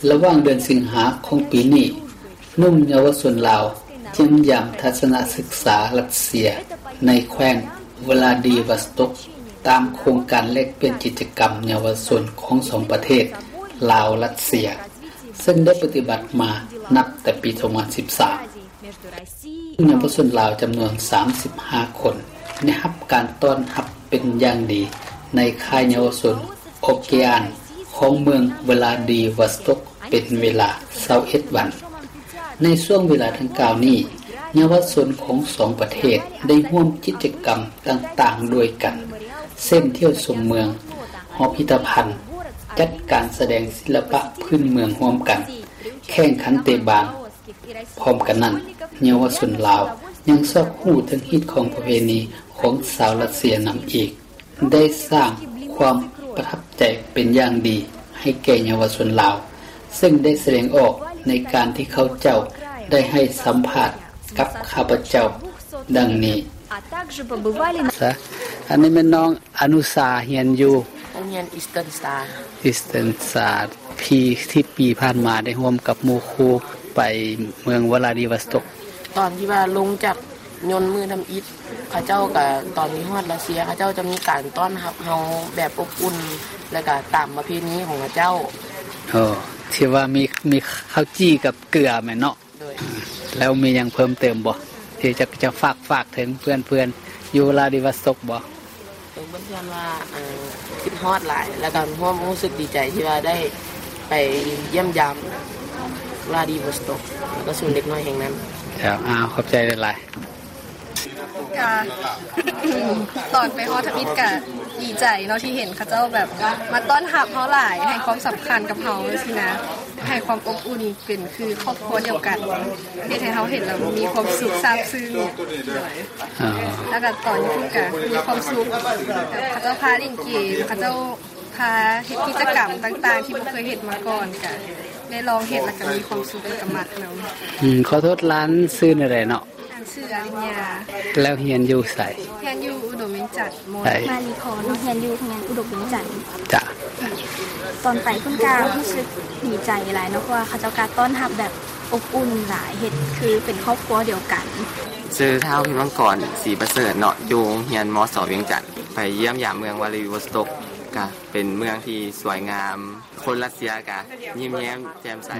ລະຫວ່າງເດືອນສິງຫາຂອງປີນີ້, ໜຸ່ມເຍົາວະຊົນລາວຢ້ຽມຢາມທັດສະນະສຶກສາຣັດເຊຍໃນແຂວງວລາດີວອສຕັກ ຕາມໂຄງການແລກປ່ຽນກິດຈະກຳເຍົາວະຊົນຂອງສອງປະເທດ ລາວ-ຣັດເຊຍ ເຊິ່ງໄດ້ປະຕິບັດມານັບແຕ່ປີສອງພັນສິບສາມ. ເຍົາວະຊົນລາວຈຳນວນສາມສິບຫ້າຄົນ ໄດ້ຮັບການຕ້ອນຮັບເປັນຢ່າງດີໃນຄ້າຍເຍົາວະຊົນໂອເກອານຂອງເມືອງວລາດີວອສຕັກເປັນເວລາຊາວເອັດວັນ. ໃນຊ່ວງເວລາດັ່ງກ່າວນີ້, ເຍົາວະຊົນຂອງສອງປະເທດໄດ້ຮ່ວມກິດຈະກຳຕ່າງໆດ້ວຍກັນ, ເຊັ່ນ ທ່ຽວຊົມເມືອງ, ຫໍພິພິທະພັນ, ຈັດການສະແດງສິລະປະພື້ນເມືອງຮ່ວມກັນ, ແຂ່ງຂັນເຕະບານ. ພ້ອມກັນນັ້ນ, ເຍົາວະຊົນລາວຍັງຊອກຮູ້ເຖິງຮີດຄອງປະເພນີຂອງຊາວຣັດເຊຍນຳອີກ, ໄດ້ສ້າງຄວາມປະທັບໃຈເປັນຢ່າງດີໃຫ້ແກ່ເຍົາວະຊົນລາວ, ເຊິ່ງໄດ້ສະແດງອອກໃນການທີ່ເຂົາເຈົ້າໄດ້ໃຫ້ສຳພາດກັບຂ້າພະເຈົ້າດັ່ງນີ້. ຊະ ອັນນີ້ແມ່ນນ້ອງອະນຸຊາ ຮຽນຢູ່ໂຮງຮຽນ Eastern Star. Eastern Star ທີ່ ທີ່ປີຜ່ານມາໄດ້ຮ່ວມກັບໝູ່ຄູ່ໄປເມືອງວລາດີວອສຕັກ. ຕອນທີ່ວ່າລົງຈາກຍົນມື້ທຳອິດ ເຂົາເຈົ້າກະ ຕອນທີ່ຮອດຣັດເຊຍ ເຂົາເຈົ້າຈະມີການຕ້ອນຮັບເຮົາແບບອົບອຸ່ນ ແລ້ວກະຕາມປະເພນີຂອງເຂົາເຈົ້າ. ໂອ້ ທີ່ວ່າມີ ມີເຂົ້າຈີ່ກັບເກືອແມ່ນເນາະ? ໂດຍ. ແລ້ວມີຫຍັງເພີ່ມເຕີມບໍ່ ທີ່ຈະ ຈະຝາກ ຝາກເຖິງເພື່ອນໆຢູ່ວລາດີວອສຕັກບໍ່? ເອີ ເພິ່ນວ່າ ເອີ ຄິດຮອດຫຼາຍ ແລ້ວກໍຮ່ວມຮູ້ສຶກດີໃຈທີ່ວ່າໄດ້ໄປຢ້ຽມຢາມວລາດີວອສຕັກ ແລ້ວກໍສູນເດັກນ້ອຍແຫ່ງນັ້ນ. ເຈົ້າ ອ້າວ ຂອບໃຈຫຼາຍໆ. ກະ ຕອນໄປຮອດທຳອິດກະດີໃຈເນາະ ທີ່ເຫັນເຂົາເຈົ້າແບບມາຕ້ອນຮັບເຮົາຫຼາຍ ໃຫ້ຄວາມສຳຄັນກັບເຮົາຊີ້ນະ ໃຫ້ຄວາມອົບອຸ່ນ ເປັນຄືຄອບຄົວດຽວກັນ ເຮັດໃຫ້ເຮົາເຫັນແລ້ວມີຄວາມສຸກຊາບຊຶ້ງ. ອໍ ແລ້ວກໍຕອນຢູ່ພຸ້ນກໍມີຄວາມສຸກ ເຂົາເຈົ້າພາຫຼິ້ນເກມ ເຂົາເຈົ້າພາເຮັດກິດຈະກຳຕ່າງໆ ທີ່ບໍ່ເຄີຍເຮັດມາກ່ອນ ກໍໄດ້ລອງເຮັດ ແລ້ວກໍມີຄວາມສຸກ ແລ້ວກໍມັກນຳ. ອືມ ຂໍໂທດ ຫຼານຊື່ແນວໃດເນາະ? ຊື່ອາລິນຍາ. ແລ້ວຮຽນຢູ່ໃສ? ຮຽນຢູ່ອຸດົມວຽງຈັນ ມ.ໃດ? ມາລີພອນ ຮຽນຢູ່ໂຮງຮຽນອຸດົມວຽງຈັນ. ຈ້ະ. ຕອນໄປພຸ້ນກະຮູ້ສຶກດີໃຈຫຼາຍເນາະ ເພາະວ່າເຂົາເຈົ້າກະຕ້ອນຮັບແບບອົບອຸ່ນຫຼາຍ ເຮັດຄືເປັນຄອບຄົວດຽວກັນ. ຊື່ທ້າວ ພິມມັງກອນ ສີປະເສີດເນາະ ຢູ່ໂຮງຮຽນ ມສ ວຽງຈັນ. ໄປຢ້ຽມຢາມເມືອງວລາດີວອສຕັກ ກະເປັນເມືອງທີ່ສວຍງາມ ຄົນຣັດເຊຍກະຍິ້ມແຍ້ມແຈ່ມໃສ.